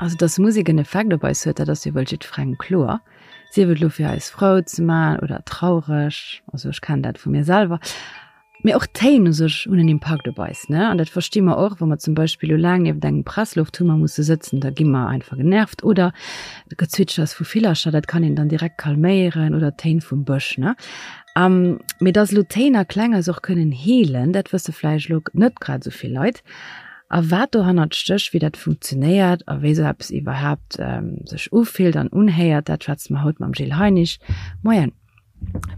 Also dass Musek en Effekt op eis huet, dat ass jo wuel jiddferengem kloer. Sief et elo fir eis frou ze man oder traureg, also ech kennen dat vu mir selwer. Mee och d'Téin u sech hunn en Impakt op eis, ne? An dat versti mer och, wa mer zum Beispill elo laang nieft engem Presslofthummer musse sëtzen, da gi mer einfach genervt. Oder d'Gezwitschers vu Villercher, dat kann een dann direkt kalméieren oder d'Téin vum Bësch, ne? Mee dass elo Téin a Kläng eis och kënnen heelen, dat wësse vläicht elo net grad esou vill Leit. A wat dohannert stécht, wéi dat funktionéiert a wéi esou eppes iwwerhaapt sech ufillt an unhéiert, dat schwätze mer haut mam Gilles Heinisch. Moien.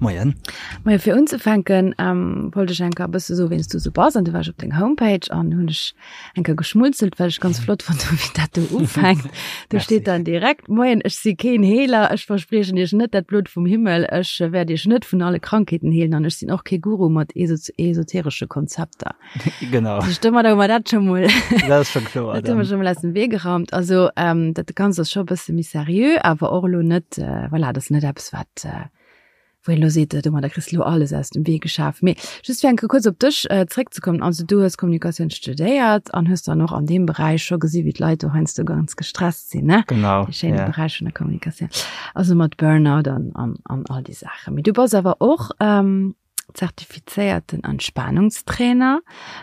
Moien. Moien, fir unzefänken ähm, wollt ech enker e bësse soen, wien s du sou bass. An du war ech op deng Homepage an hunn ech enker geschmunzelt, well ech ganz flott fonnt hunn, wéi dat do ufänkt. Do steet dann direkt, Moien, ech si keen Heeler, ech verspriechen iech net dat Blot vum Himmel, ech wäert iech net vun alle Krankheeten heelen an ech sinn och kee Guru mat esoteresche Konzepter. Genau. Domadder hu mer dat scho mol. Dat ass scho kloer. Dat hu mer scho mol aus dem Wee geraumt. Also ähm, dat Ganzt ass scho e bësse méi seriö, awer och elo net, äh, voilà, dat ass net eppes, wat äh, wou een elo seet, domadder kriss de elo alles aus dem Wee geschaf. Mee just fir eng Kéier kuerz op dech äh, zréckzekommen, also du hues Kommunikatioun studéiert an hues dann och an deem Beräich scho gesi wéi d'Leit do heiansdo ganz gestresst sinn, ne? Genau. Dee schéine ja. Beräich vun der Kommunikatioun. Also mat Burnout an, an, an all déi Saachen. Mee du bass awer och ähm, zertifizéierten Entspanungstrainer.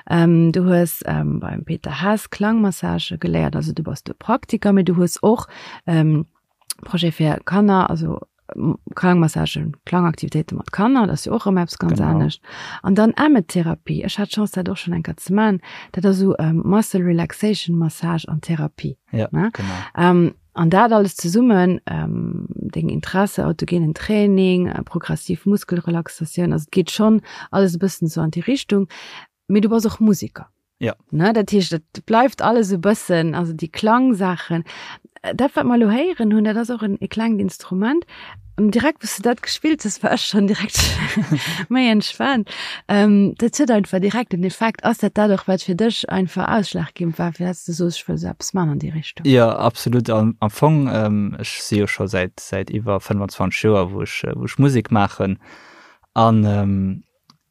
Ähm, du hues ähm, beim Peter Hess Klangmassage geléiert, also du bass do Praktiker, mee du hues och ähm, Projet fir Kanner, also Klangmassagen, Klangaktivitéite mat Kanner, dat ass jo och erëm eppes ganz genau. anescht. An dann Emmetherapie, ech hat d'Chance dat och schon eng Kéier ze man, dat ass esou ähm, Muscle Relaxation Massage an Therapie. Ja, ne? genau. Ähm, An dat alles zesummen, deng Interesse, autogenen Training, progressiv Muskelrelaxatioun, also et geet schonn alles e bëssen esou an déi Richtung. Mee du bass och Museker. Ja. Ne, dat heescht, et bleift alles e bëssen, also déi Klangsaachen. Dat, wat mer elo héieren hunn, dat ass och en e klengt Instrument. An direkt, wou s de dat gespillt hues, war ech schonn direkt méi entspaant. Ähm, dat huet einfach direkt en Effekt. Ass dat dat och, wat fir dech einfach ausschlaggebend war, fir dass du soos, ech wëll esou eppes man an déi Richtung? Jo, absolut. Am, am Fong, ähm, ech si jo scho säit, säit iwwer 25 Joer, wou ech, wou ech Musek maachen. An, ähm,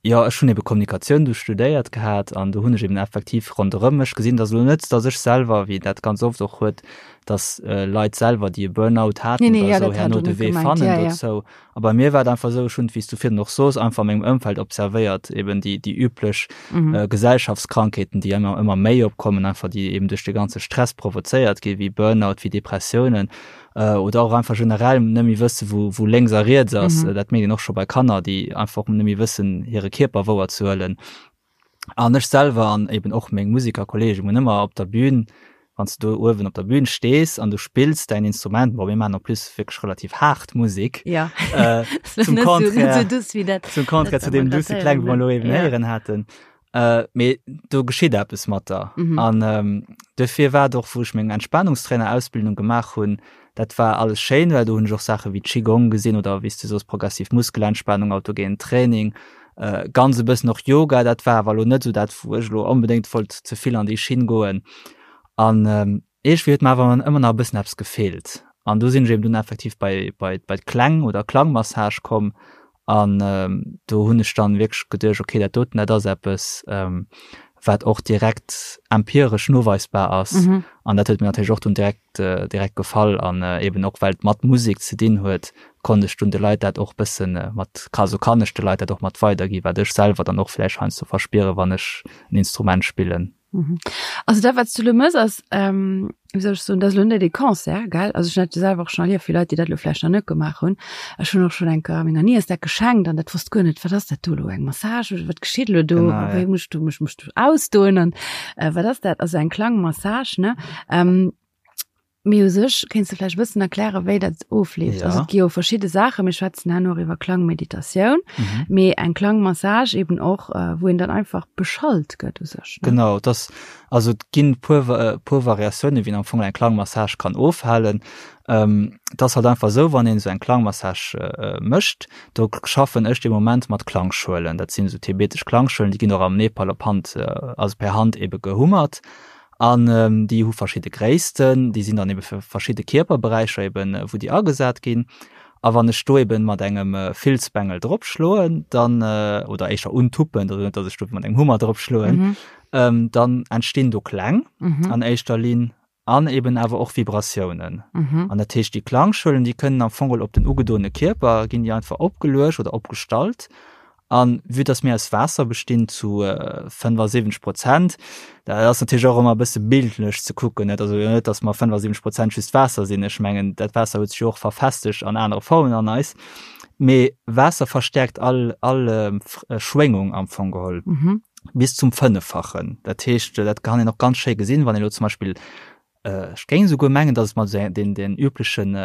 Jo, ech hunn ebe Kommunikatioun du studéiert gehat an do hunn ech eben effektiv ronderëm mech gesinn, dass elo net, dass ech selwer, wéi dat ganz oft och huet, dass Leit selwer, déi e Burnout haten Nee, nee, oder ja, esou, dat hat herno och de net Wee gemengt. fannen Ja, ja. dozou. A bei mir war et einfach esou, ech hunn, wéi s du virun och soos, einfach a mengem Ëmfeld observéiert, eben déi, déi üblech Mhm. Gesellschaftskrankheeten, déi ëmmer, ëmmer méi opkommen, einfach déi eben duerch de ganze Stress provozéiert ginn, wéi Burnout, wéi Depressiounen. oder och einfach generell net méi wësse wou, wou lénks a riets ass. Mhm. Dat mécht een och scho bei Kanner, déi einfach net méi wëssen hire Kierper wouer ze huelen. An ech selwer an eben och meng Musikerkollegen hunn ëmmer op der Bühn, wann s du do uewen op der Bühn stees an du spills däin Instrument, bon mir maachen en plus wierklech relativ haart Musek. Ja. Äh, zum Net so, net Contraire, so duuss wéi dat. zum Contraire dat zu deem mer grad duusse Kläng, héieren wou mer hunn. elo eben Ja. héieren haten. Äh, mee do geschitt eppes mat der. Mhm. An ähm, dofir war et och, wou ech meng Entspanungstrainer-Ausbildung gemaach hunn, dat war alles schéin, well do hunn ech och Saache wéi Qigong gesinn oder wéi s du soos progressiv Muskelentspannung, autogenen Training, äh, ganz e bëssen och Yoga, dat war awer elo net esou dat, wou ech elo onbedéngt wollt ze vill an déi Schinn goen. An ähm, Iergendwéi huet mer awer ëmmer nach e bëssen eppes gefeelt. An do sinn ech eben dunn effektiv bei, bei, bei d'Kläng oder Klangmassage komm. An do hunn ech dann wierklech geduecht, okay, dat doten, dat ass eppes, wat och direkt empiresch noweisbar ass. Mhm. An dat huet mir natierlech och dunn direkt, direkt gefall. An eben och well et mat Musek ze dinn huet, konnt ech dunn de Leit dat och bëssen mat, also kann ech de Leit dat och mat weiderginn, wat ech selwer dann och vläicht heiansdo verspieren, wann ech en Instrument spillen. Mhm. Also dat wat s du lo mëss ass, ähm, wéi soll ech soen, dat ass lo net e Concert, gell? Also ech hunn dat jo selwer och schonn erlieft, fir Leit, déi dat lo vläicht nach net gemaach hunn. Ech hunn och schonn eng Kéier menger Niess dat geschenkt an dat wosst guer net, wat ass dat do elo, eng Massage oder wat geschitt elo do? Genau, ja. Wéi muss ech do mech muss ech do ausdoen an äh, wat ass dat? Also eng Klangmassage, ne? Ähm, Mee u sech kéints de vläicht e bëssen erklären, wéi dat ofleeft. Ja. Also et gi jo verschidde Saachen, mir schwätzen herno och iwwer Klangmeditatioun, Mhm. mee eng Klangmassage eben och, äh, wou een dann einfach beschallt gëtt u sech, ne? Genau, et ass, also et ginn puer, äh, puer Variatiounen, wéi een am Fong eng Klangmassage kann ofhalen. Ähm, et ass halt einfach esou, wann een esou eng Klangmassage äh, mécht, do schaffen ech de Moment mat Klangschuelen. Dat sinn esou tibetesch Klangschuelen, déi ginn och am Nepal op Hand, äh, also per Hand ebe gehummert. An déi hu verschidde Gréissten, déi sinn dann ebe fir verschidde Kierperberäicher eben, wou déi agesat ginn. A wann ech do eben mat engem Filzbengel drop schloen, dann, oder éischer untuppen, also net, datt ech do mat engem Hummer drop schloen, dann entstinn do Kläng an éischter Linn. An eben awer och Vibratiounen. Mhm. An dat heescht, déi Klangschuelen, déi kënnen am Fong op den ugedoene Kierper, ginn déi einfach opgeluecht oder opgestallt. An vue dass mir aus Waasser bestinn zu 75 Prozent, dat ass natierlech och ëmmer e bësse bildlech ze kucken, net? Also net, dass mer 75 Prozent just Waasser sinn. Ech mengen, dat Waasser huet sech jo och verfestegt an anere Formen an eis. Mee Waasser verstäerkt all, all Schwéngung am Fong geholl. Mhm. Bis zum Fënneffachen. Dat heescht, dat kann een och ganz schéi gesinn, wann een elo zum Beispill Ech géing esouguer mengen, datt et mat esou den, den üblechen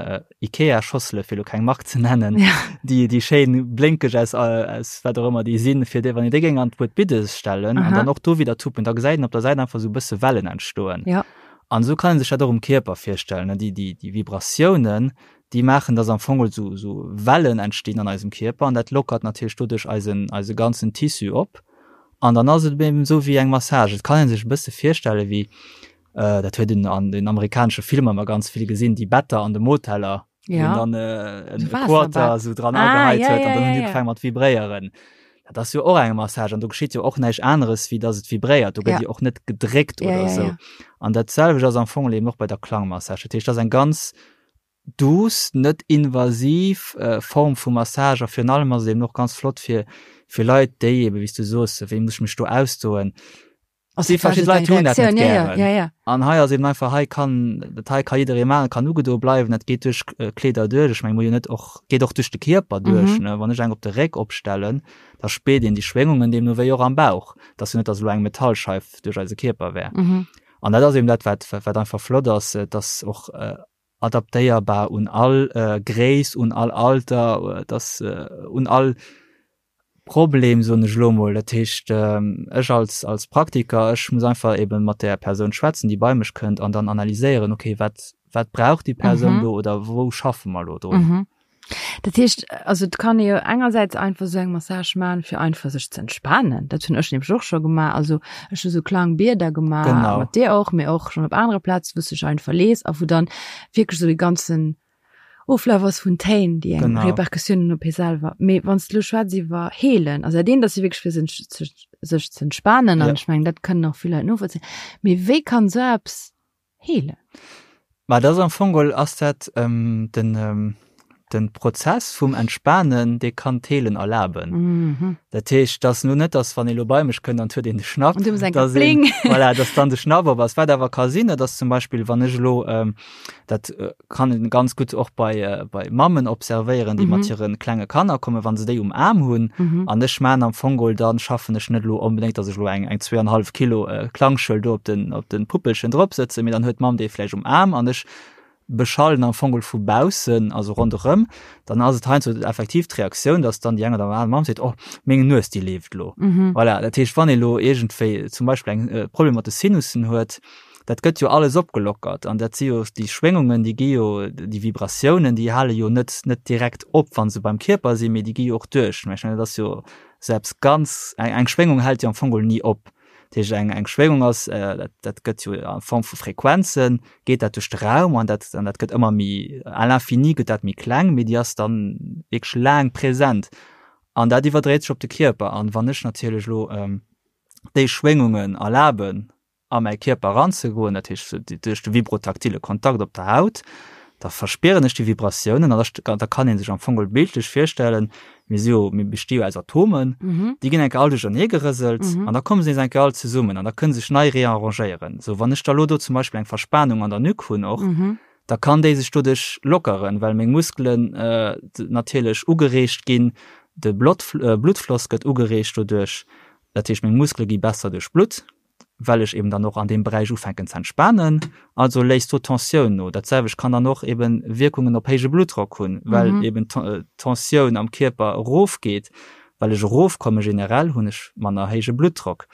Ikea-Schossele, fir elo keng Mark ze nennen, ja. déi, déi schéin blénkeg aus, aus wat och ëmmer déi sinn, fir déi, wann een déi géing an d'Buet Biddes stellen Aha. an dann och do wieder tuppen, da gesäit een op der Säit einfach esou e bësse Wellen entstoen. Ja. An esou kann een sech dat och um Kierper virstellen, ne? Déi, déi, déi Vibratiounen, déi maachen, datt am Fong esou, esou Wellen entstinn an eisem Kierper an dat lockert natierlech doduerch eisen, eise ganzen Tissu op. An dann ass et eben esou wéi eng Massage. Et kann ee sech e bësse virstelle wéi, Dat huet een an den amerikanesche Filmer ëmmer ganz vill gesinn, déi Better an de Moteller, wou Ja. een dann äh, en So Quarter Waasserbett. sou dran Ah, agehäit ja, huet ja, an dann ja, hunn déi ja. ugefaangen mat vibréieren. Dat ass jo och eng Massage an do geschitt jo och näischt aneres, wéi dass et vibréiert. Do gëtt Ja. jo och net gedréckt Ja, oder ja, sou. ja. An dat selwecht ass am Fong eben och bei der Klangmassage. Dat heescht, dat ass eng ganz douce, net invasiv äh, Form vu Massage a virun allem ass et eben och ganz flott fir, fir Leit, déi eben, wéi s du soos, wéi muss ech mech do ausdoen, Also Déi verschidde Leit hunn dat net ja, ja, gären. ja, ja. An hei ass eben einfach, hei kann, dat hei ka jidderee maachen, kann ugedoe bleiwen, dat geet duerch Kleeder duerch. Ech menge, muss jo net och, geet och duerch de Kierper duerch, Mhm. ne. Wann ech eng op de Réck opstellen, da spiert een déi Schwéngungen deemno wéi och am Bauch. Et ass jo net, datt elo eng Metallscheif duerch eise Kierper wär. Mhm. An dat ass eben dat, wat, wat einfach flott ass, et ass och adaptéierbar un all Gréisst, un all Alter, et ass un all Problem, soen ech elo mol. Dat heescht, ech als, als Praktiker, ech muss einfach eben mat där Persoun schwätzen, déi bei mech kënnt an dann analyséieren, okay, wat, wat brauch déi Persoun do oder wou schaffe mer elo drun? Mhm. Dat heescht, also et kann ee jo engersäits einfach esou eng Massage maachen, fir einfach sech ze entspanen. Dat hunn ech nämlech och scho gemaach. Also ech hu sou Klangbieder gemaach, Genau. mat dir och, mee och schonn op anere Plazen, wou s du dech einfach lees a wou dann wierklech esou de ganzen Oflaf ass vun Téin, déi eng Genau. Repercussioun hunn op hie selwer. Mee wann s de elo schwätz iwwer heelen, also dat eent ass jo wierklech fir sech, sech ze entspanen an Ja. ech mengen, dat kënnen och vill Leit novollzéien. Mee wéi kann esou eppes heelen? Ma dat ass am Fong geholl ass dat ähm, den, ähm, den Prozess vum Entspanen, dee kann d'Heelen erlaben. Mhm. Dat heescht, dass lo net, dass wann ee lo bei mech kënnt an huet een de Schnapp, Und du musst dass een, voilà, dass dann de Schnapp op ass. Wat awer ka sinn, dat ass zum Beispill, wann ech elo, ähm, dat äh, kann een ganz gutt och bei, äh, bei Mammen observéieren, déi Mhm. mat hire klenge Kanner kommen, wann se déi um Aarm hunn, Mhm. an ech man am Fong geholl, dann schaffen ech net elo onbedéngt, dass ech elo eng, eng zweieinhalb Kilo äh, Klangschuel do op den, op den Puppelchen drop sëtzen, mee dann huet d'Mamm déi vläicht um Aarm an ech beschallen am Fong geholl vu baussen, also ronderëm, dann ass et heiansdo effektiv d'Reaktioun, dass dann déi eng oder aner Mamm seet, oh, meng Nues, déi leeft elo. Mhm. Voilà, dat heescht, wann ee elo iergendwéi zum Beispill eng äh, Problem mat de Sinussen huet, dat gëtt jo alles opgelockert an dat si jo déi Schwéngungen, déi gi jo, déi Vibratiounen, déi hale jo net net direkt op, wa se beim Kierper sinn, mee déi gi jo och duerch. Mä ech mengen, dat ass jo selbst ganz, eng eng Schwéngung hält jo am Fong geholl ni op. Dat heescht, eng eng Schwéngung ass, dat dat gëtt jo a Form vu Frequenzen, geet dat duerch de Raum an dat an dat gëtt ëmmer méi, à l'infini gëtt dat méi kleng, mee déi ass dann wierklech laang present an dat iwwerdréit sech op de Kierper. An wann ech natierlech elo déi Schwéngungen erlaben, a mäi Kierper eranzegoen, dat heescht duerch de vibrotaktile Kontakt op der Haut, da verspieren ech déi Vibratiounen an da da kann ee sech am Fong geholl bildlech virstellen, mir si jo, mir besti jo aus Atomen, déi ginn eng Kéier all duerchernee gerëselt an da komme se nees eng Kéier all zesummen an da kënne sech nei rearrangéieren. Sou, wann ech da lo do zum Beispill eng Verspanung an der Nuque hunn och, da kann déi sech doduerch lockeren, well meng Muskelen natierlech ugereegt ginn, de Bluttfloss gëtt ugereegt doduerch, dat heescht meng Muskele gi besser duerchblutt. well ech eben dann och an deem Beräich ufänken ze entspanen, also léisst do d'Tensioun no. Dat selwecht kann dann och eben Wierkungen op héije Bluttdrock hunn, well mhm. eben d'Tensioun am Kierper erofgeet, well ech erofkomme generell hunn ech manner héije Bluttdrock.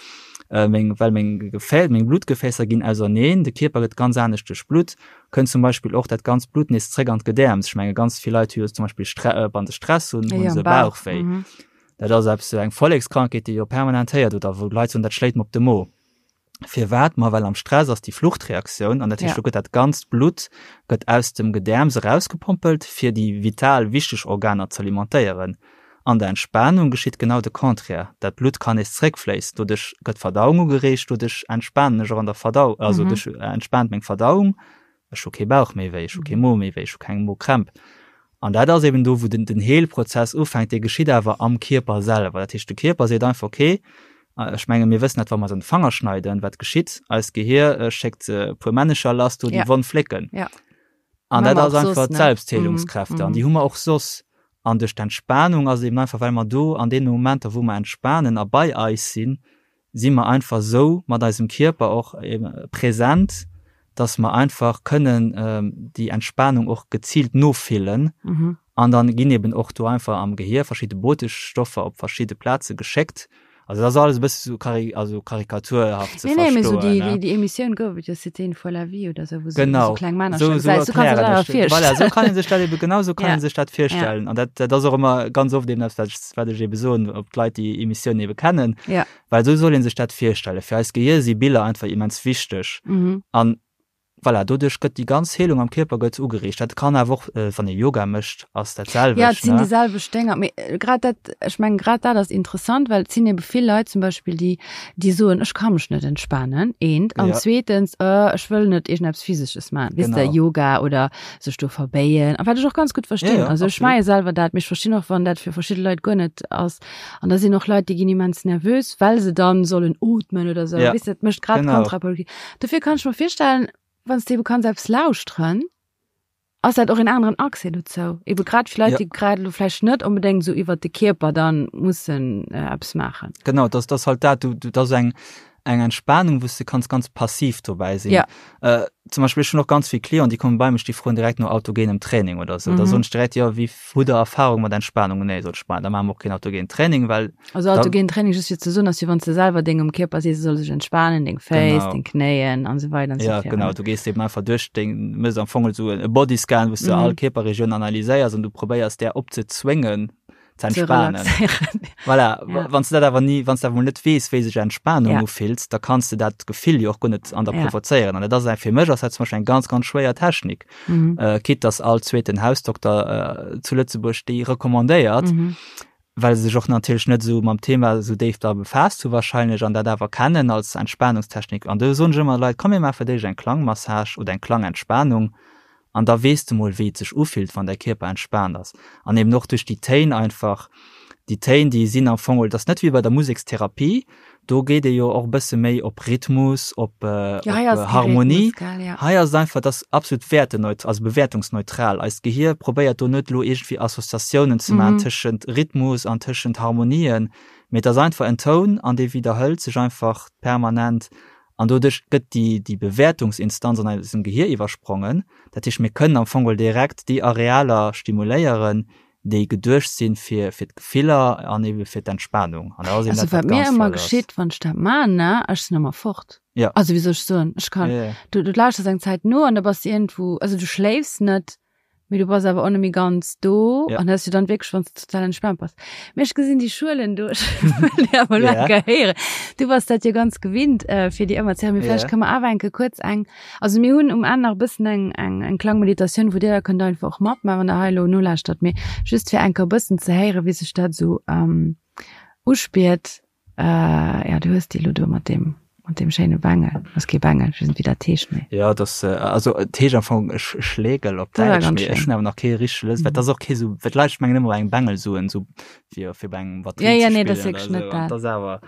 Äh, meng, well meng Gefä meng Blutgefäässer ginn auserneen, de Kierper gëtt ganz anescht duerchblutt, kënnt zum Beispill och dat ganzt Blut nees zréck an d'Gedäerms. Ech menge ganz vill Leit hu jo zum Beispill Stre äh, wann se Stress hunn, hunn se Bauchwéi. Mhm. Dat ass eppes, eng Vollekskrankheet, déi jo permanent héiert oder wou d'Leit soen, dat schléit mer op de Mo. Firwat? Ma well am Stress ass déi Fluchtreaktioun an dat heescht, do gëtt dat ganzt Blutt gëtt aus dem Gedäerms erausgepompelt, fir déi vital wichteg Organer z'alimentéieren. An der Entspanung geschitt genau de Contraire, dat Blutt kann nees zréckfléissen, doduerch gëtt d'Verdauung ugereegt, doduerch entspanen ech och an der Verdau, also duerch entspaant meng Verdauung, ech hu kee Bauch méi wéi, ech hu kee Mo méi wéi, ech hu keng Mokrämp. An dat ass eben do, wou den den Heelprozess ufänkt, dee geschitt awer am Kierper selwer. Dat heescht, de Kierper seet einfach, okay, ech menge mir wëssen dat, wa mer eis an de Fanger schneiden, wat geschitt? Eist Gehier schéckt e puer Männecher lass, do déi Wonn flécken. An dat ass einfach d'Selbstheelungskräfte an déi hu mer och soss. An duerch d'Entspanung ass et eben einfach, well mer do an deene Momenter, wou mer entspanen a bei eis sinn, si mer einfach esou mat eisem Kierper och present, dass mer einfach kënnen déi Entspanung och geziilt nofillen. An dann ginn eben och do einfach am Gehier verschidde Botenstoffer op verschidde Plaze geschéckt. Also dat ass alles e bësse sou kari also karikaturhaft ze Nee, nee, mee sou verstoen, déi, ne? déi, déi Emissioun gouf et jo, C'était une fois la vie oder sou, wou sou, wou sou kleng Männercher Genau, sou, gesäis. sou Sou kanns du erklären dat awer ech dat. Voilà, virstellen. sou kann ee sech dat ebe, genau sou kann Ja. ee sech dat Ja. virstellen. An dat, dat ass och ëmmer ganz oft eben dat, wat ech, wat ech ebe soen, ob d'Leit déi Emissioun ebe kennen. Ja. Well sou soll ee sech dat virstellen. Fir eist Gehier si Biller einfach immens wichteg. Mhm. An Voilà, doduerch gëtt déi ganz Heelung am Kierper gëtt ugereegt. Dat kann awer och, wann ee Yoga mécht, ass dat selwecht, Ja, et sinn ne? déi selwecht Dénger. Mee grad dat, ech mengen, grad dat ass interessant, well et sinn ebe vill Leit zum Beispill, déi, déi soen, ech ka mech net entspanen, eent. An Ja. zweetens, ech wëll net iergendeppes Physesches maachen, weess de, Genau. Yoga oder sech do verbéien. A wat ech och ganz gutt Ja, verstinn. ja, Also ech absolut. maache selwer dat, mee ech verstinn och, wann dat fir verschidde Leit guer net ass. An da sinn och Leit, déi ginn immens nervös, well se dann sollen ootmen oder sou. Ja, Weess de, dat mécht grad genau. kontraproduktiv. Dofir kann ech mer virstellen, wann s de ebe kanns eppes lauschteren, ass dat och en aneren Accès dozou. Ebe grad fir Leit, Ja. déi grad elo vläicht net onbedéngt esou iwwert de Kierper dann mussen äh, eppes maachen. Genau, das, das halt dat, du, du, das eng, eng Entspannung, wou s de kanns ganz passiv dobäi sinn. Ja. Äh, zum Beispill, ech hunn och ganz vill Clienten, déi komme bei mech, déi froen direkt no autogenem Training oder sou. Da Mhm. soen ech direkt, jo, wéi Hutt der Erfahrung mat Entspannung? Nee, sot ech, ma da maache mer och keen autogenen Training, well Also autogen Training just fir ze soen ass wéi wann s de selwer dengem Kierper sees, e soll sech entspanen, deng Féiss, Genau. deng Knéien an esou weider an esou Ja, virun. genau, du gees eben einfach duerch deng, méchs am Fong esou e Bodyscan, wou s du all Mhm. Kierperregioun analyséiers an du probéiers där opzezwéngen ze Ze entspanen. relaxéieren. Voilà, Ja. wann s du dat awer ni, wann s du awer mol net weess, wéi sech Entspanung Ja. ufillt, da kanns de dat Gefill jo och guer net an der Ja. provozéieren. An dat ass eng, fir mech ass dat zum Beispill eng ganz, ganz schwéier Technik. Mhm. Äh, quitte dass all zweeten Hausdokter äh, zu Lëtzebuerg déi recommandéiert, Mhm. well se sech och natierlech net esou mam Thema esou déif da befaasst hu wahrscheinlech an dat awer kennen als Entspanungstechnik. An do soen ech ëmmer Leit, komm mir maache fir d'éischt eng Klangmassage oder eng Klangentspanung an da weess de mol wéi et sech ufillt, wann däi Kierper entspaant ass. An eben och duerch déi Téin einfach, déi Téin déi sinn am Fong, et ass net wéi bei der Musekstherapie, Do geet ee jo och e bësse méi op Rhythmus, op, Ja, hei op ass kee Harmonie. Rhythmus, gell, ja. Hei ass et einfach, et ass absolut wäerteneut-, also bewäertungsneutral. Eist Gehier probéiert do net elo iergendwéi Associatiounen ze maachen Mhm. tëschent Rhythmus an tëschent Harmonien, mee et ass einfach en Toun an dee widderhëlt sech einfach permanent an doduerch gëtt déi, déi Bewäertungsinstanz an eisem Gehier iwwersprongen. Dat heescht, mir kënnen am Fong geholl direkt déi Arealer stimuléieren, déi geduecht sinn fir fir d'Gefiller an ebe fir d'Entspanung. An dat ass eben Also dat, wat wat mir ganz ëmmer flott ass. geschitt, wann ech dat man, ne, ech sinn ëmmer fort. Ja. Also wéi soll ech soen, ech kann, Ja, ja. du, du lauschters eng Zäit no an da bass du iergendwou, also du schléifs net, mee du bass awer och net méi ganz do Ja. an dat ass jo dann wierklech, wann s du total entspaant bass. Mee ech gesinn déi Schuelen do, ech wëll déi awer elo Ja. eng Kéier héieren. Du bass dat jo ganz gewinnt, äh, fir déi ëmmer ze héieren, mee Ja. vläicht kënne mer awer eng Kéier kuerz eng Also mir hunn um Enn nach e bëssen eng, eng, eng Klangmeditatioun, wou Dir da kënnt einfach och matmaachen, wann Der hei elo nolauschtert. Mee just fir eng Kéier e bëssen ze héieren, wéi sech dat esou ähm, uspiert. Äh, ja, du hues déi elo do mat deem, mat deem schéine Bengel. Ass kee Bengel, ech weess net, wéi dat heescht, mee. Ja, dat, also et heescht am Fong Schlegel op Dat war Däitsch, ganz mee ech schéin. hunn awer nach kee richtege Lëtz, well dat ass och kee sou, well d'Leit mengen ëmmer bei engem Bengel soen, sou fir, fir bei engem Ja, Batterie ja, ze nee, dat ass spillen wierklech oder net sou, an dat. dat ass awer.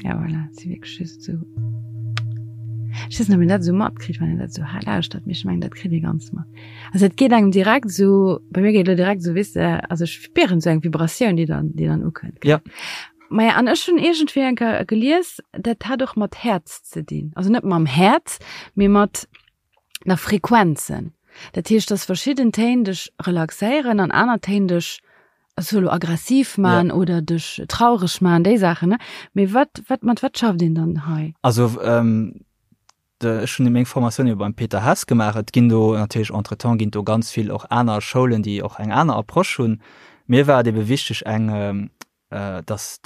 Ja, voilà, si wierklech just esou. Ech weess net, ob een dat esou matkritt, wann een dat esou hei lauschtert, mee ech mengen, dat kritt ee ganz mat. Also et geet engem direkt esou, bei mir geet elo direkt esou, weess de, also ech spieren esou eng Vibratioun, déi dann, déi dann ukënnt. Ja. Maja, an ech hunn iergendwéi eng Kéier gelies, dat hat och mat Häerz ze dinn. Also net mam Häerz, mee mat nach Frequenzen. Dat heescht, dass verschidden Téin dech relaxéieren an aner Téin dech also elo aggressiv man ja. oder dech traureg man, déi Saachen. Ne? Mee wat, wat, mat wat schafft een dann hei? Also ähm, de, ech hunn meng Formatioun jo beim Peter Hess gemaach. Et ginn do natierlech entretemps ginn do ganz vill och aner Schoulen, déi och eng aner Approche hunn. Mir war et ebe wichteg eng ähm, äh, dass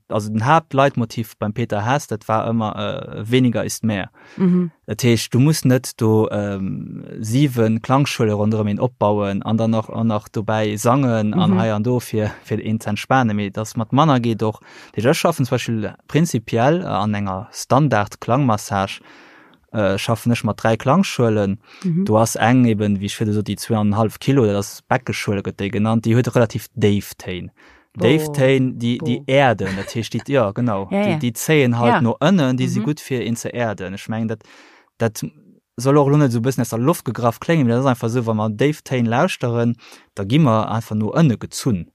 also den Haaptleitmotiv beim Peter Hess, dat war ëmmer äh, weniger ist mehr. Mhm. Dat heescht, du muss net do ähm, siwen Klangschuele ronderëm een opbauen an dann nach an nach dobäi sangen an mhm. hei an do fir fir een ze entspanen, mee dass mat manner geet och. Dat heescht, ech schaffen zum Beispill prinzipiell äh, an enger Standard Klangmassage äh, schaffen ech mat dräi Klangschuelen. Mhm. Do ass eng eben, wéi ech virdu sot, déi zweieinhalb Kilo, dat ass Beckeschuele gëtt déi genannt, déi huet relativ déif Téin. Déif Téin, déi, déi erden, dat heescht, déi, ja genau, ja, ja. déi, déi zéien halt ja. no ënnen, déi si mhm. gutt fir een ze erden. Ech mengen, dat, dat soll och lo net so bëssen aus der Loft gegraff kléngen, mee dat ass einfach esou, wa mer déif Téin lauschteren, da gi mer einfach no ënne gezunn.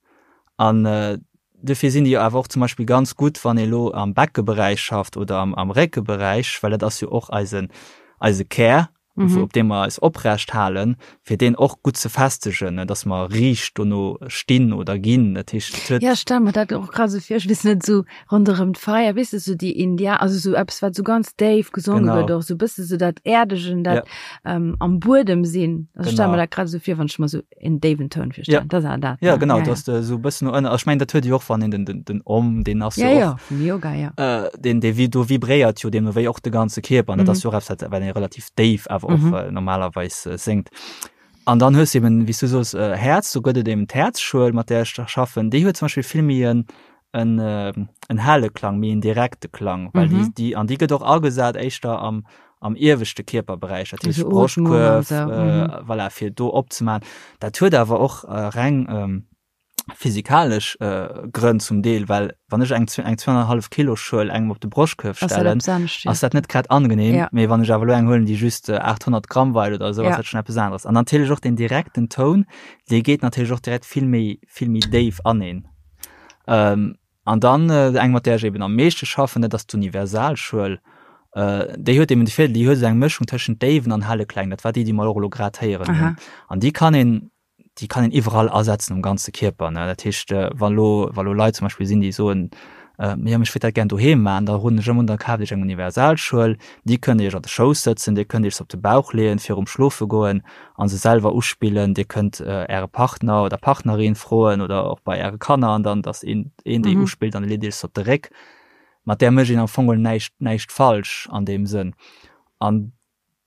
An äh, Dofir sinn déi awer och zum Beispill ganz gutt, wann ee lo am Beckeberäich schafft oder am, am Réckeberäich, well dat ass jo och eisen, eise Kär, mhm. op deem mer eis oprecht halen, fir deen och gutt ze festegen, ne, dass mer riicht dono stinn oder ginn. Dat heescht, et huet. Ja, ech stelle mer dat och grad esou vir, ech weess net, esou ronderëm d'Feier, weess de, esou déi India, also esou eppes, wat esou ganz déif gesonge gëtt, och esou e bësse esou dat Äerdegen, dat ja. ähm, am Buedem sinn. Also ech stelle mer dat grad esou vir, wann ech mer esou en déiwen Toun virstellen. Ja. Dat ass dat. Ja, genau, ja, ja. dass de esou e bëssen no ënner, also ech mengen, dat huet jo och, wann een den, den, den Om, deen ass ja, jo och, ja, vum Yoga, ja. Äh, deen, dee vi, do vibréiert jo deemno wéi och de ganze Kierper, an dat mhm. ass jo och eppes, wat, wat ee relativ déif awer och mhm. äh, normalerweis äh, séngt. An dann hues du eben, wéi s du soos, äh, Häerz, do gëtt et eben d'Häerzschuel, mat där ech da schaffen, déi huet zum Beispill vill méi en, en, äh, en helle Klang, méi en direkte Klang, well mhm. déi, déi, an déi gëtt och agesat éischter am, am ieweschte Kierperberäich, dat heescht Broschtkuerf, so. äh, mhm. voilà, fir do opzemaachen. Dat huet awer och äh, reng ähm, physikalesch äh, Grënn zum Deel, well wann ech eng, eng 2,5 Kilo Schuel engem op de Broschtkuerf stellen, ass dat, dat net grad angenehm, ja. mee wann ech awer lo eng huelen, déi just äh, 800 Gramm weit oder so, ja. ass dat schon eppes aneres. An natierlech och den direkten Toun, dee geet natierlech och direkt vill méi, vill méi déif an een. Ähm, an dann äh, eng mat där ech eben am meeschte schaffen, dat ass d'Universalschuel. Äh, déi huet eben de Virdeel, déi huet esou eng Mëschung tëschent déiwen an helle Kläng. Dat war déi, déi mer och elo grad héieren hunn. An déi kann een, déi kann een iwwerall asetzen um ganze Kierper. Ne? Dat heescht, äh, wa lo, wa lo Leit zum Beispill sinn, déi soen, äh, ja, ech wéilt dat gär doheem maachen, da roden ech ëmmer un, da kaaft iech eng Universalschuel. Déi kënnt Dir iech an de Schouss sëtzen, Dir kënnt iech se op de Bauch leeën virum Schlofe goen a se selwer uspillen. Dir kënnt Äre Partner oder Partnerin froen oder och bei Äre Kanner an dann, dass een, een déi mhm. uspillt an leet Iech se op de Réck. Mat där mécht een am Fong näischt, näischt falsch an deem Sënn. An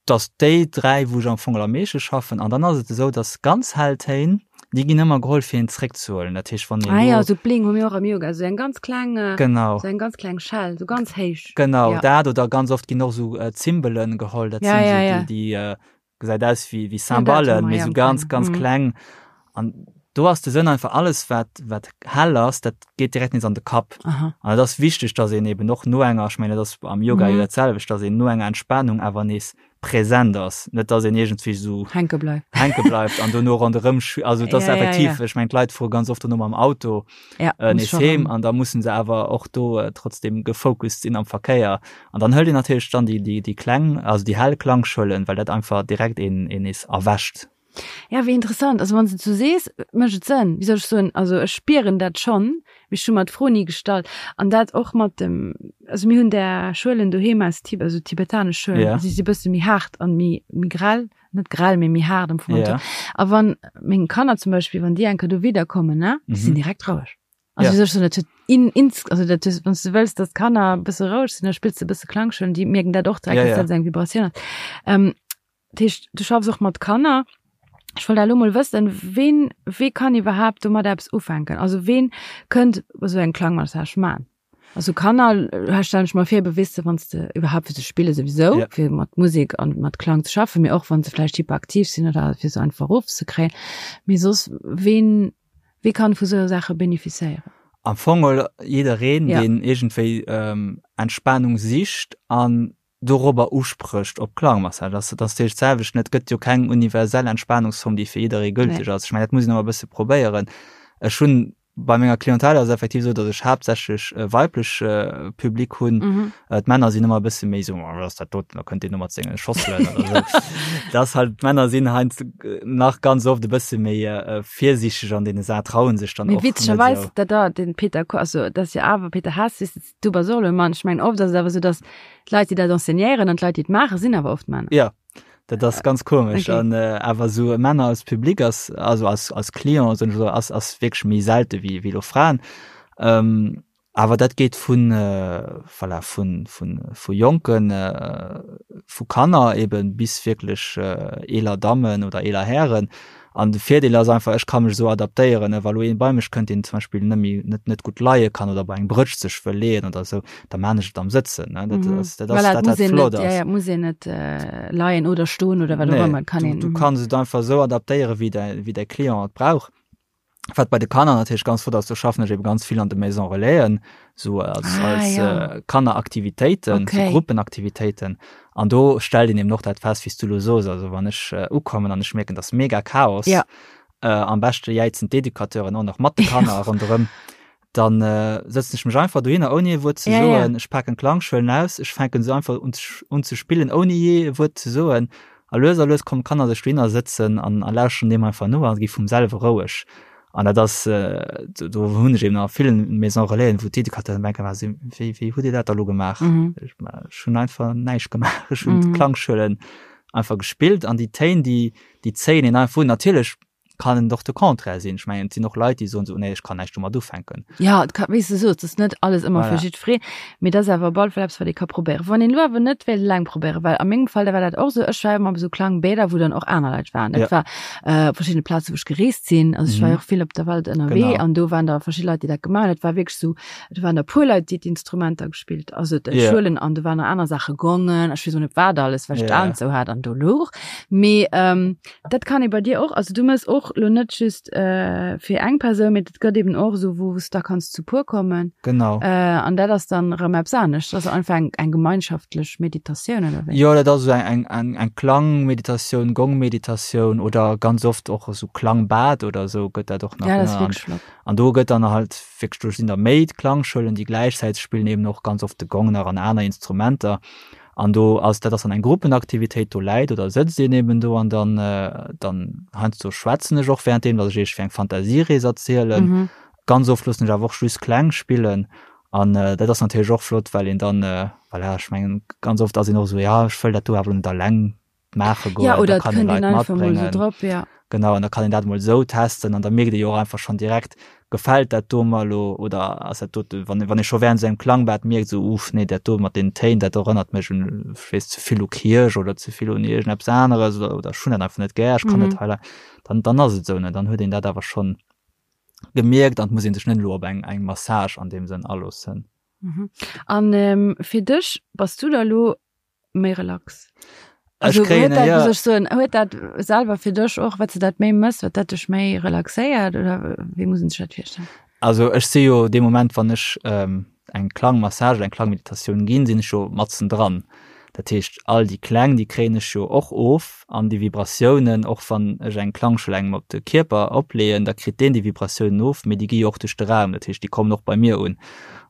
dass déi dräi, wou ech am Fong am meeschte schaffen, an dann ass et esou, dass ganz hell Téin, déi ginn ëmmer geholl fir een zréckzehuelen. Dat heescht, wann een. Ah ja, sou Bling hu mir och am Yoga, sou eng ganz kleng, äh, genau. sou eng ganz kleng Schell, sou ganz héich. Genau, ja. dat oder ganz oft ginn och sou äh, Zimbelen geholl, dat ja, sinn ja, sou ja. déi, déi äh, gesäit aus wéi wéi Cymballen, mee sou ganz ganz mhm. kleng. An do ass de Sënn einfach alles wat wat hell ass, dat geet direkt nees an de Kapp. An et ass wichteg, dass een eben och no enger, ech mengen dat ass am Yoga jo mhm. dat selwecht, dass een no enger Entspannung awer nees präsent ass, net dass een iergendwéi sou hänke bleift hänke bleift an dono ronderëm also dat ass ja, effektiv, ja, ja. ech mengen d'Leit fuere ganz oft dono mam Auto ja, äh, nees heem an da mussen se awer och do äh, trotzdem gefocust sinn am Verkéier. An dann hëlt een natierlech dann déi, déi, déi kleng, also déi hell Klangschuelen, well dat einfach direkt een, een nees erwächt. Ja, wéi interessant. Also wann s de et sou sees, mécht et Sënn. Wéi soll ech soen, also ech spieren dat schonn, mee ech hu mer d'Fro ni gestallt. An dat och mat dem, also mir hunn där Schuelen doheem aus Tibet, also tibetanesch Schuelen, Ja. si si bësse méi haart an méi, méi grell, net grell, mee méi haart am Fong. Ja. A wann meng Kanner zum Beispill, wann déi eng Kéier do widderkommen, ne, déi sinn Mhm. direkt roueg. Also Ja. wéi soll ech soen, dat huet in, ins, also dat hues, wann s du wëlls, datt d'Kanner e bësse roueg sinn, da spills de e bësse Klangschuelen, déi mierken dat och direkt, Ja, dass ja. dat esou eng Vibratioun ass. Ähm, Dat heescht, du schaffs och mat Kanner. Ech wollt elo mol wëssen, ween, wee kann iwwerhaapt domat eppes ufänken? Also ween kënnt esou eng Klangmassage man? Also Kanner, äh, stellen ech mer vir, bewisse wann s de iwwerhaapt fir ze spille souwisou, Ja. fir mat Musek an mat Klang ze schaffen, mee och wann se vläicht hyperaktiv sinn oder fir se einfach erofzekréien. Mee soss, ween, wee kann vu sou Saache benefizéieren? Am Fong jiddereen, Ja. deen iergendwéi ähm, Entspanung sicht an dorobber usprécht op Klangmassage. Dat ass natierlech d'selwecht, et gëtt jo keng universell Entspanungsform, déi fir jidderee gülteg ass. Ech mengen, dat muss een ëmmer e bësse probéieren. Ech hunn bei menger Clientèle ass et effektiv esou, datt ech haaptsächlech e weiblech Public hunn. D'Männer sinn ëmmer e bësse méi esou, wat ass dat doten, da kënnt deen do mat senge Schosselen oder esou. Dat ass halt, d'Männer sinn heiansdo nach ganz oft e bësse méi virsiichteg an deene Saachen, trauen sech dann Mee och net esou. witzegerweis, dat da, den Peter, also dat ass jo awer Peter Hess, weess de, Du bass och elo e Mann. Ech mengen, oft ass et awer esou, datt d'Leit, déi dat enseignéieren an d'Leit, déi et maachen, sinn awer oft Männer. Ja, dat ass ganz komesch. Okay. An äh, awer esou Männer als Public ass, also als, als Client, soen ech esou, ass, ass wierklech méi selte wéi, wéi elo Fraen. Ähm, awer dat geet vun, voilà, vun, vun, vu Jonken, vu Kanner eben bis wierklech eeler Dammen oder eeler Hären. An de Virdeel ass einfach, ech ka mech esou adaptéieren, wa lo een bei mech kënnt, deen zum Beispill net méi, net, net gutt leie kann oder bei eng Brëtsch sech wëll leeën oder esou, da maan ech et am Sëtzen, ne. Dat ass, dat ass Voilà, dat, et wat muss een flott net, ja, ass. ja, et muss een net leien oder stoen oder wat och Nee, ëmmer, et kann du, een, du kanns et einfach esou adaptéieren, wéi däi, wéi däi Client et brauch. Wat bei de Kanner natierlech ganz flott ass, do schaffen ech eben ganz vill an de Maison Relaisen, sou als, Ah, als ja. äh, Kanneraktivitéiten, Okay. so Gruppenaktivitéiten. An do stellt een eben och dat fest, wéi s du lo sos. Also wann ech äh, ukommen an ech mierken, dass mega Chaos, Ja. äh, am beschte jäizen d'Educateuren och nach mat de Kanner ronderëm, dann äh, sëtzen ech mech einfach dohinner, ouni e Wuert ze Ja, ja. soen. Ech paken d'Klangschuelen aus, ech fänken se einfach un, ze- un ze spillen, ouni je e Wuert ze soen. A lues a lues kommen d'Kanner sech dohinner sëtzen an a lauschteren deem einfach no a gi vum selwe roueg. An dat ass, do do hunn ech eben a villen Maisons Relaisen, wou d'Educateuren denken, wa si, wéi wéi hutt Dir dat da lo gemaach? Ech ech hunn einfach näischt gemaach. Ech hunn d'Klangschuelen einfach gespillt an déi Téin, déi déi zéien een einfach un. Natierlech kann et och de Contraire sinn. Ech mengen, et sinn och Leit, déi soen esou, nee, ech kann näischt domat ufänken. Ja, et ka, wéi s de soos, et ass net alles ëmmer fir Voilà. jiddwereen, mee et ass awer op alle Fall eppes, wat ee ka probéieren. Wann een elo awer net wéilt eleng probéieren, well a mengem Fall, da war dat och esou, ech war ëmmer op esou Klangbäder, wou dann och aner Leit waren. Dat Ja. war äh, op verschiddene Plaze, wou ech gereest sinn. Also ech war Mhm. jo och vill op der Welt ënnerwee Genau. an do waren da verschidde Leit, déi dat gemaach hunn. Et war wierklech esou, do waren der puer Leit, déi d'Instrumenter gespillt, also Ja. d'Schuelen an do waren nach aner Saache, Gongen, ech weess och net wat alles, well ech Ja. d'Aen zou hat an do louch. Mee ähm, Dat kann ee bei dir och, also du mëss och lo net just äh, fir eng Persoun, mee et gëtt eben och esou, wou s da kanns zu puer kommen. Genau. Äh, an dat ass dann erëm eppes anescht. Dat ass einfach eng, eng gemeinschaftlech Meditatioun oder wéi? Jo, dat ass esou eng, eng, eng Klangmeditatioun, Gongmeditatioun oder ganz oft och esou Klangbad oder esou gëtt dat och nach Ja, dat ass genannt. wierklech flott. An do gëtt dann halt wierklech, do sinn da méi Klangschuelen, déi gläichzäiteg spillen, eben och ganz oft de Gong nach an aner Instrumenter. An do ass, dat ass dann eng Gruppenaktivitéit, do läit oder sëtzt een eben do an dann, dann heiansdo schwätzen ech och währenddeem, datt ech iergendwéi eng Fantasierees erzielen. Mhm. Ganz oft loossen ech awer och just Kläng spillen an dat ass natierlech och flott, well een dann, voilà, ech mengen ganz oft ass een och esou, ja ech wëll dat do awer elo net alleng maache goen, Ja, oder da et kann ee kënnt een Leit einfach mol esou matbréngen. drop, ja. Genau, an da kann een dat mol esou testen an da mierkt ee jo och einfach schonn direkt, gefält dat do mer elo oder ass dat dote, wann wann ee scho während esou engem Klangbad mierkt, esou uff, nee, dat do mat deenen Téin, dat erënnert mech un, ech weess, ze vill u Kierch oder ze vill un iergendeppes aneres oder oder ech hunn dat einfach net gär, ech kann net Mhm. hei, dann dann ass et esou, ne, dann huet een dat awer schonn gemierkt an et muss ee sech net elo op eng eng Massage an deem Sënn aloossen. Mhm. An ähm, fir dech, bass du da elo méi relax? Also, Also, kréien, huet dat, ja. muss ech soen, huet dat selwer fir dech och, wat du dat méi mëss, wat dat dech méi relaxéiert oder wéi muss een sech dat virstellen? Also ech si jo dee Moment, wann ech ähm, eng Klangmassage, eng Klangmeditatioun ginn, sinn ech jo matzen dran. Dat heescht, all déi Kläng, déi kréien ech jo och of an déi Vibratiounen, och wann ech eng Klangschuel engem op de Kierper opleeën, da kritt deen déi Vibratiounen of, mee déi gi jo och duerch de Raum, dat heescht, déi kommen och bei mir un.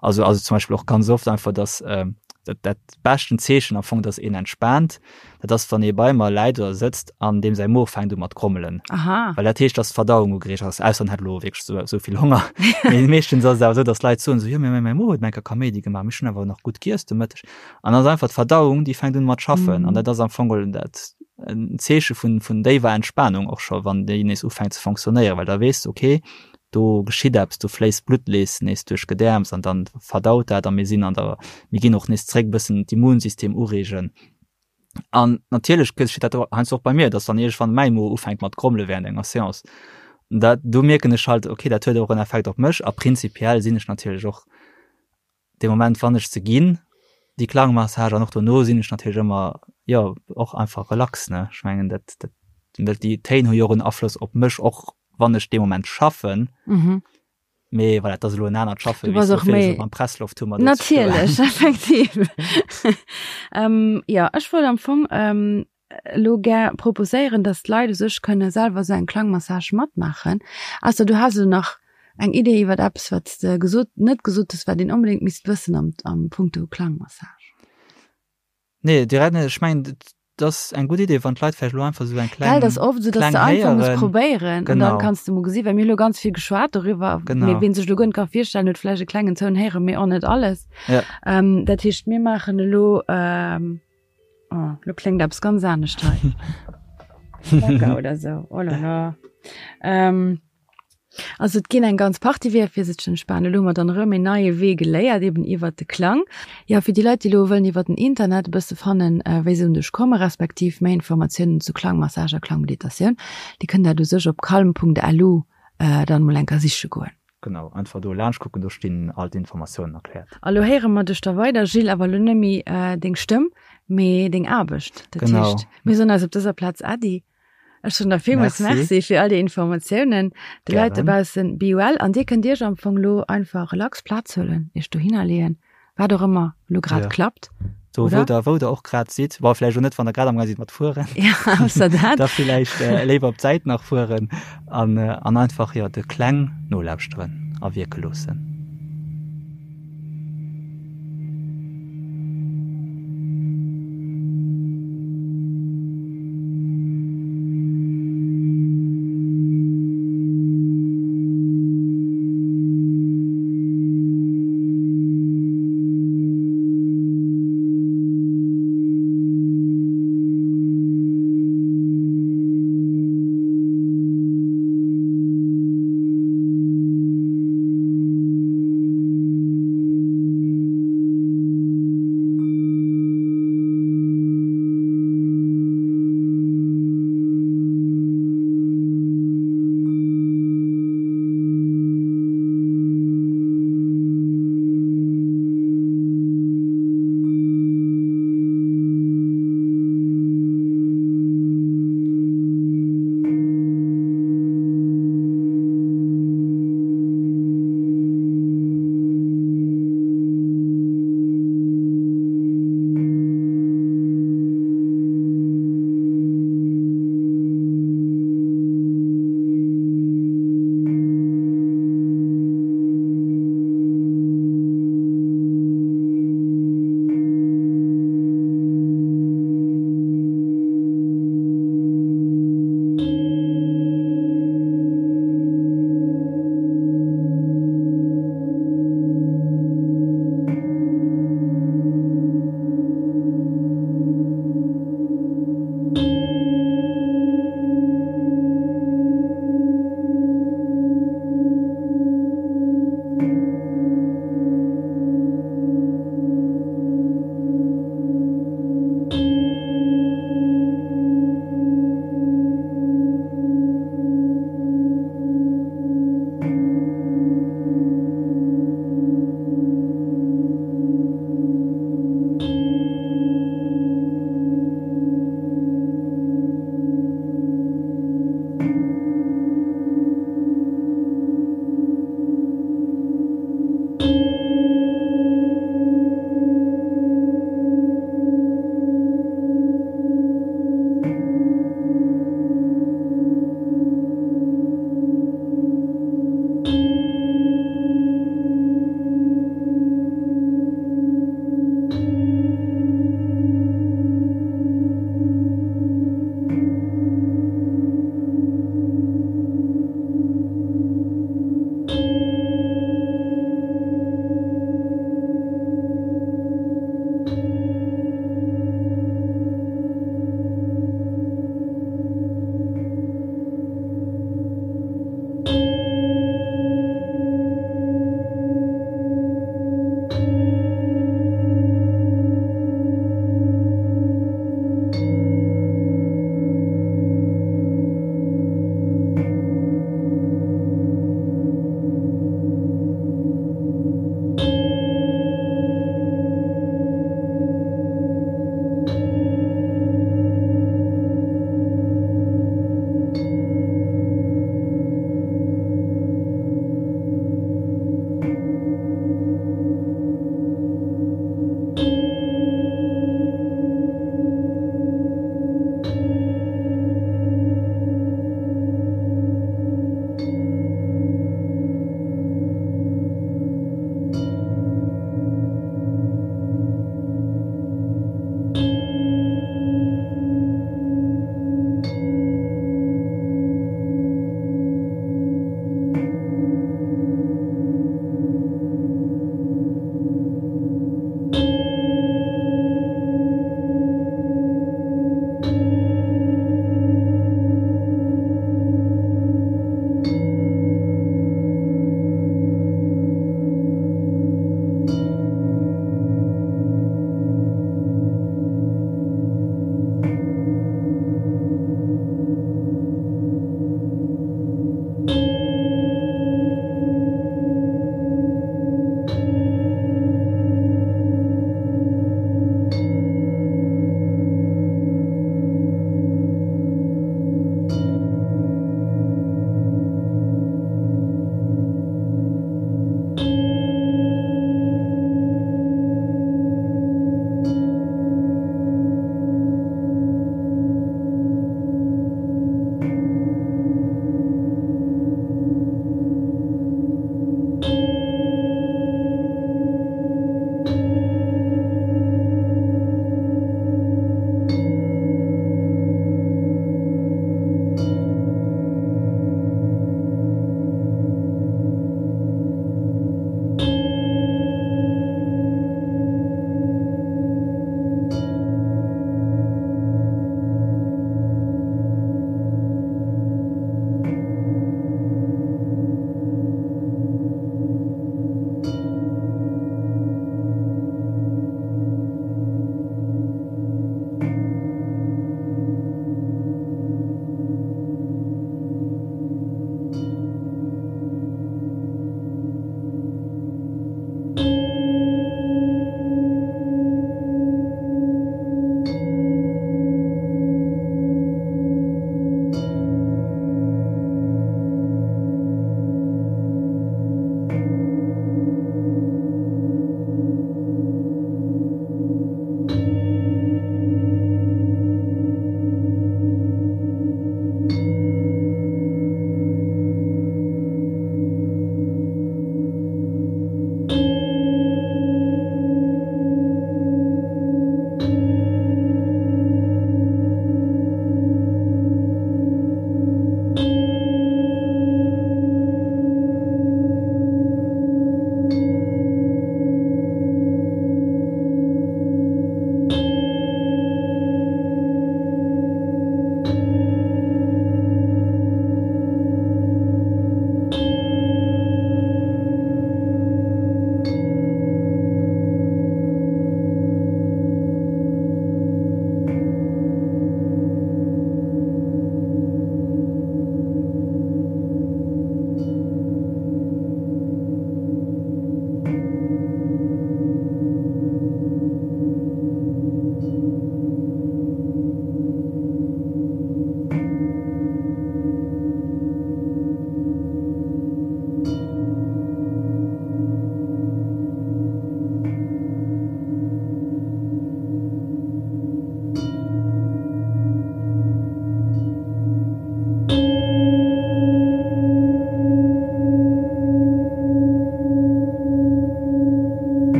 Also ass et zum Beispill och ganz oft einfach, dass ähm, dat, dat beschten Zeechen am Fong, dass een entspaant, dat ass, wann ee bei mer läit oder sëtzt an deem säi Mo fänkt u mat grommelen. Aha. Well dat heescht, dass d'Verdauung ugereegt ass, ausser en hätt elo wierklech esou, esou vill Honger. Mee meeschtens ass et awer esou, dass d'Leit soen esou, jo, mee mäi Mo huet eng Kéier Kaméidi gemaach, mee ech hunn awer nach gutt giess de Mëtteg. An dann ass einfach d'Verdauung, déi fänkt un mat schaffen. An dat ass am Fong geholl dat en Zeeche vun, vun déiwer Entspanung och scho, wann déi nees ufänkt ze fonctionnéieren, well da weess de, okay, do geschitt eppes, do fléisst d'Blutt nees nees duerch d'Gedäerms an dann verdaut dat a mir sinn an der, mir ginn och nees zréck bëssen d'Immunsystem ureegen. An natierlech geschitt dat heiansdo och bei mir, dass dann iergendwann mäi Mo ufänkt mat grommele während enger Seance. Dat, do mierken ech halt, okay, dat huet och en Effekt op mech a prinzipiell sinn ech natierlech och dee Moment, wann ech se ginn, déi Klangmassage, an och dono sinn ech natierlech ëmmer, jo, och einfach relax, ne. Ech mengen, dat, dat, well déi Téin hu jo och en Afloss op mech, och wann ech dee Moment schaffen. Mhm. Mee voilà, dat ass elo en anert Schaffen, Du bass och méi. Mam Presslofthummer do ze stoen. Natierlech, effektiv. ähm, jo, ech wollt am Fong ähm, elo gär proposéieren, dass d'Leit u sech kënne selwer esou eng Klangmassage matmaachen. Ausser du has elo nach eng Idee iwwert eppes, wat s de gesot, net gesot hues, wat een onbedéngt misst wëssen am, am Punkto Klangmassage. Nee, direkt net. Ech mengen, et ass eng gutt Idee, wann d'Leit vläicht elo einfach esou eng kleng, Gell, dat ass oft esou, dass Kläng de einfach muss héieren. probéieren an dann Genau. kanns de mol gesinn, well mir hu lo ganz vill geschwat doriwwer, Genau. mee ween sech elo guer net ka virstellen, huet vläicht e klengen Toun héieren, mee och net alles. Ja. Ähm, dat heescht, mir maachen elo, ähm, Oh, lo kléngt eppes ganz anescht hei. Lecker oder so. Oh la la. Ähm. Also et ginn eng ganz Partie Weeër fir sech ze entspanen. Elo hu mer dann erëm een neie Wee geléiert, eben iwwert de Klang. Jo, fir déi Leit, déi elo wëllen iwwert den Internet e bësse fannen, wéi se un dech kommen, respektiv méi Informatiounen zu Klangmassage a Klangmeditatioun, déi kënnen dat u sech op calm.lu dann emol eng Kéier siche goen. Genau, einfach do laanscht kucken, do stinn all d'Informatiounen erkläert. A lo héiere mer dech da weider, Gilles, awer elo net méi deng Stëmm, mee deng Aarbecht. Dat heescht, mir soen eis op dëser Plaz Äddi. Ech soen der villmools Merci fir all déi Informatiounen. De Leit dobaussen, be well. An dir kënnt iech am Fong elo einfach relax Plaz huelen, iech dohinner leeën, wat och ëmmer elo grad klappt. Do wou der, wou der och grad sidd. Bon, vläicht och net, wann der grad amgaang sidd mat fueren. Ja, ausser dat. Da villäicht léiwer op d'Säit nach fueren an, an einfach, jo, de Kläng nolauschteren a wierke loossen.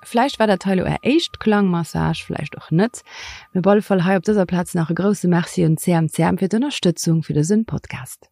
Vläicht war dat hei lo är éischt Klangmassage, vläicht och net. Mee op alle Fall hei op dëser Plaz nach e grousse Merci un CMCM fir d'Ënnerstëtzung fir dësen Podcast.